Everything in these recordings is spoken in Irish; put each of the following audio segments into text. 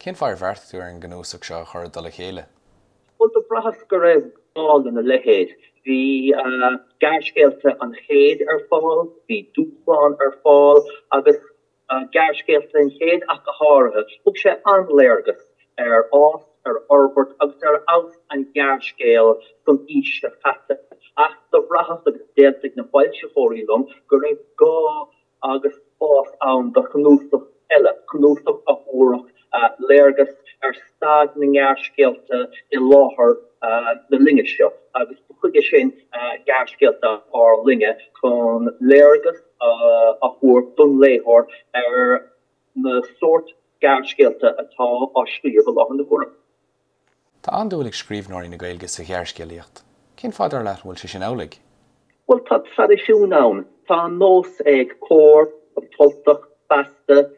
Cén fáth ar bheartaigh tú ar an gcnuasach seo a chur i dtoll a chéile? Bhuel, do bhraitheas go raibh gá lena leithéid. Bhí Gearrscéalta an Chéid ar fáil, bhí Dúshlán ar fáil agus Gearrscéalta an Chéid ach go háirithe. Thug sé an-léargas ar fhás, ar fhorbairt agus ar fheabhas an ghearrscéil san aois seo caite. Ach do bhraitheas, agus d'aontaigh na foilsitheoirí liom, go raibh gá agus spás ann do chnuasach eile, cnuasach a thabharfadh léargas ar staid na ngearrscéalta i láthair na linne seo, agus ba chuige sin Gearrscéalta ár Linne, chun léargas a thabhairt don léitheoir ar na sórt gearrscéalta atá á scríobh i láthair na huaire. Tá an-dúil ag scríbhneoirí na Gaeilge sa ghearrscéalaíocht. Cén fáth, dar leat, an bhfuil sé sin amhlaidh? Bhuel, tá traidisiún ann. Tá an nós ag Comhar, An tUltach, Feasta,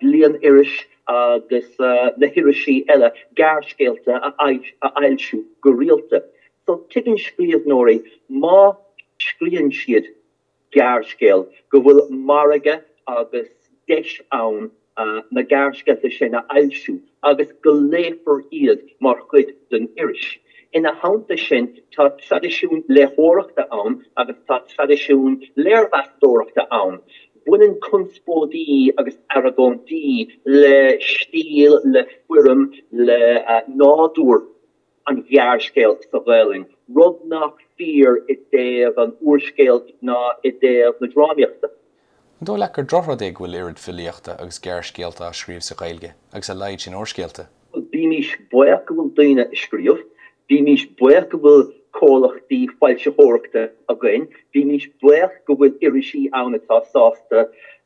Bliain-Iris agus na hirisí eile gearrscéalta a fhoilsiú go rialta. So, tuigeann scríbhneoirí má scríobhann siad gearrscéal, go bhfuil margadh agus deis ann na gearrscéalta sin a fhoilsiú agus go léifear iad mar chuid den iris. Ina theannta sin, tá traidisiún léitheoireachta ann agus tá traidisiún léirmheastóireachta ann. Baineann conspóidí agus argóintí le stíl, le foirm, le nádúr an ghearrscéil sa Ghaelainn, rud nach fíor i dtaobh an úrscéil ná i dtaobh na drámaíochta. An dóigh leat gur drochrud é go bhfuil oiread filíochta agus gearrscéalta á scríobh sa Ghaeilge agus a laghad sin úrscéalta? Bhuel, bímís buíoch go bhfuil daoine ag scríobh, bímís buíoch go bhfuil comhlachtaí foilsitheoireachta againn, bímís buíoch go bhfuil irisí ann atá sásta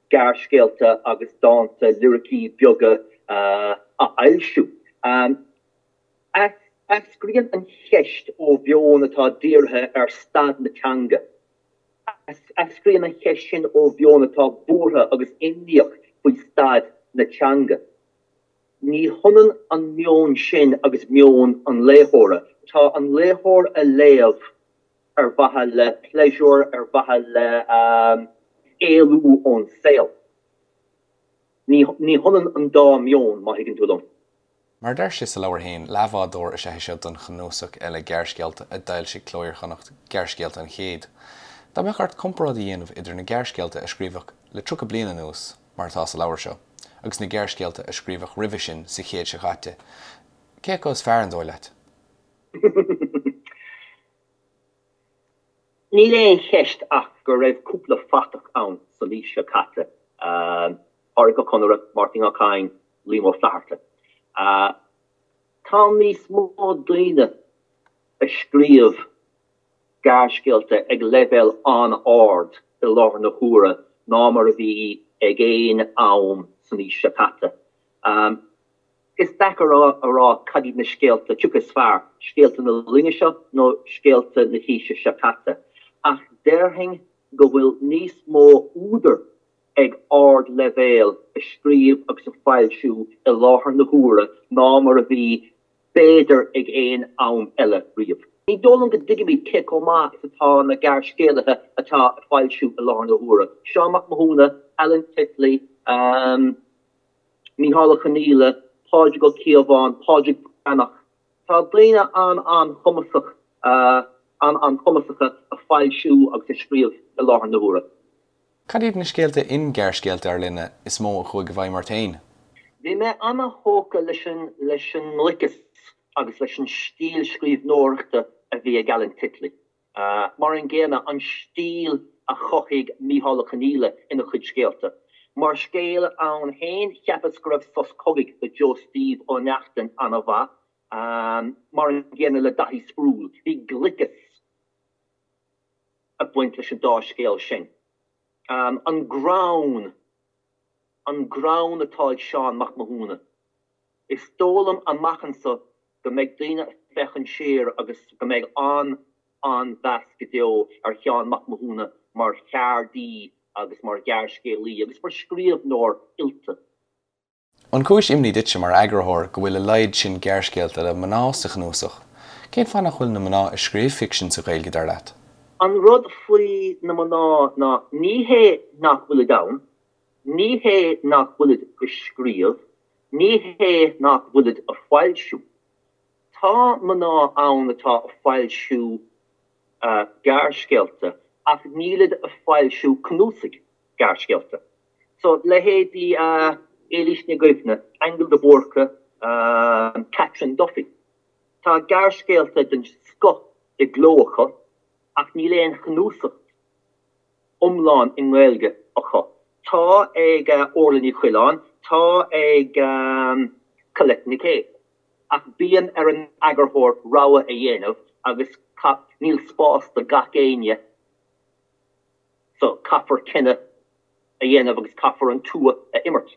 gearrscéalta agus dánta, liricí beaga a fhoilsiú. Eascraíonn an cheist ó mheon atá dírithe ar staid na teanga. Eascraíonn an cheist sin ó mheon atá buartha agus imníoch faoi staid na teanga. Ní hionann an meon sin agus meon an léitheora. Tá an léitheoir ag léamh ar mhaithe le pléisiúr, ar mhaithe le éalú ón saol. Ní hionann an dá mheon, má thuigeann tú liom. Mar a deir sé sa leabhar féin, leathbhádóir is ea é seo don chnuasach eile gearrscéalta a d'fhoilsigh Cló Iar-Chonnacht, Gearrscéalta an Chéid. Dá mbeadh ort comparáid a dhéanamh idir na gearrscéalta a scríobhadh le 30 bliain anuas, mar atá sa leabhar seo, agus na gearrscéalta a scríobhadh roimhe sin sa chéad seo caite, cé acu is fearr, an dóigh leat? Níl aon cheist ach go raibh cúpla fathach ann san aois seo caite, Pádraic Ó Conaire, Máirtín Ó Cadhain, Liam Ó Flaithearta. Tá níos mó daoine ag scríobh gearrscéalta ag leibhéal an-ard i láthair na huaire ná mar a bhí ag aon am san aois seo caite. Is deacair a rá cad iad na scéalta, cé acu is fearr, scéalta na linne seo nó scéalta na haoise seo caite, ach déarfainn go bhfuil níos mó údar ag ardleibhéal ag scríobh agus ag foilsiú i láthair na huaire ná mar a bhí b'fhéidir ag aon am eile riamh. Ní dóigh liom go dtuigimid cé chomh maith is atá na gearrscéalaithe atá ag foilsiú i láthair na huaire, Seán Mac Mathúna, Alan Titley, Mícheál Ó Conghaile, Pádraig Ó Cíobháin, Pádraig Breathnach. Tá daoine an-an-chumasach, an-an-chumasacha ag foilsiú agus ag scríobh i láthair na huaire. Cad iad na scéalta in Gearrscéalta ár Linne is mó a chuaigh i bhfeidhm ort féin? Bhí mé ana-thógtha leis an leis an ngliceas agus leis an stíl scríbhneoireachta a bhí ag Alan Titley. Mar an gcéanna, an stíl a chothaigh Mícheál Ó Conghaile ina chuid scéalta. Mar scéal ann féin, cheapas go raibh Sos Cogaidh le Joe Steve Ó Neachtain ana-mhaith, mar an gcéanna le Daithí Sproule. Bhí gliceas. ag baint leis an dá scéal sin. An greann, an greann atá ag Seán Mac Mathúna. Is dóigh liom amach anso go mbeidh daoine ag féachaint siar agus go mbeidh an-an-mheas go deo ar Sheán Mac Mathúna mar cheardaí agus mar ghearrscéalaí agus mar scríbhneoir oilte. An cúis imní duitse mar eagarthóir go bhfuil a laghad sin gearrscéalta le mná sa chnuasach? Cén fáth nach bhfuil na mná ag scríobh ficsin sa Ghaeilge, dar leat? An rud faoi na mná ná ní hé nach bhfuilid ann, ní hé nach bhfuilid ag scríobh. Ní hé nach bhfuilid a foilsiú. Tá mná ann atá a foilsiú gearrscéalta ach nílid a foilsiú cnuasaigh gearrscéalta. So, leithéidí Éilís Ní Dhuibhne, Aingeal de Búrca, Catherine Duffy. Tá gearrscéalta den scoth i gcló acu ach níl aon chnuasach iomlán i nGaeilge acu. Tá ag Orla Ní Choileáin, tá ag Colette Nic Aoidh. Ach bíonn ar an eagarthóir rogha a dhéanamh agus níl spás do gach éinne so caithfear cinneadh a dhéanamh agus caithfear an tua a imirt.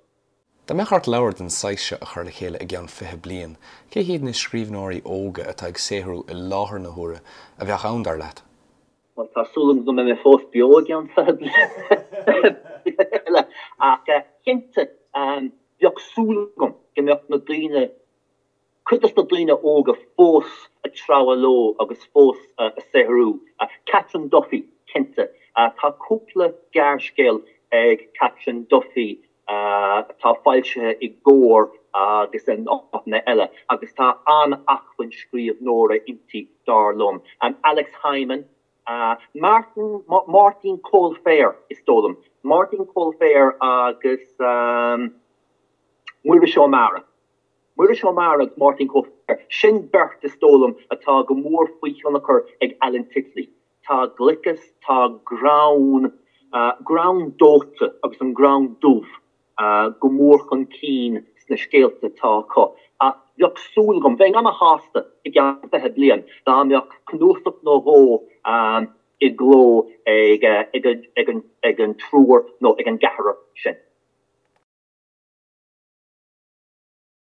Dá mbeadh ort leabhar den saghas seo a chur le chéile i gceann 20 bliain, cé hiad na scríbhneoirí óga atá ag saothrú i láthair na huaire a bheadh ann, dar leat? Bhuel, tá súil agam go mbeidh mé fós beo i gceann 20 bliain eile, ach cinnte, bheadh súil agam go mbeadh na daoine, cuid dos na daoine óga fós ag treabhadh leo agus fós ag saothrú. Catherine Duffy, cinnte. Tá cúpla gearrscéal ag Catherine Duffy atá foilsithe i gComhar agus in áiteanna eile agus tá an-acmhainn scríbhneora inti, dar liom. Alex Hyman, Martin, Máirtín Coilféir, is dóigh liom. Máirtín Coilféir agus Muiris Ó Meára. Muiris Ó Meára agus Máirtín Coilféir, sin beirt is dóigh liom atá go mór faoi thionchar ag Alan Titley. Tá gliceas, tá greann, greann dóite agus an greann dubh go mór chun cinn sna scéalta atá acu. Ach bheadh súil agam, bheinn ana-shásta i gceann 20 bliain dá mbeadh cnuasach nó dhó i gcló ag an triúr nó ag an gceathrar sin.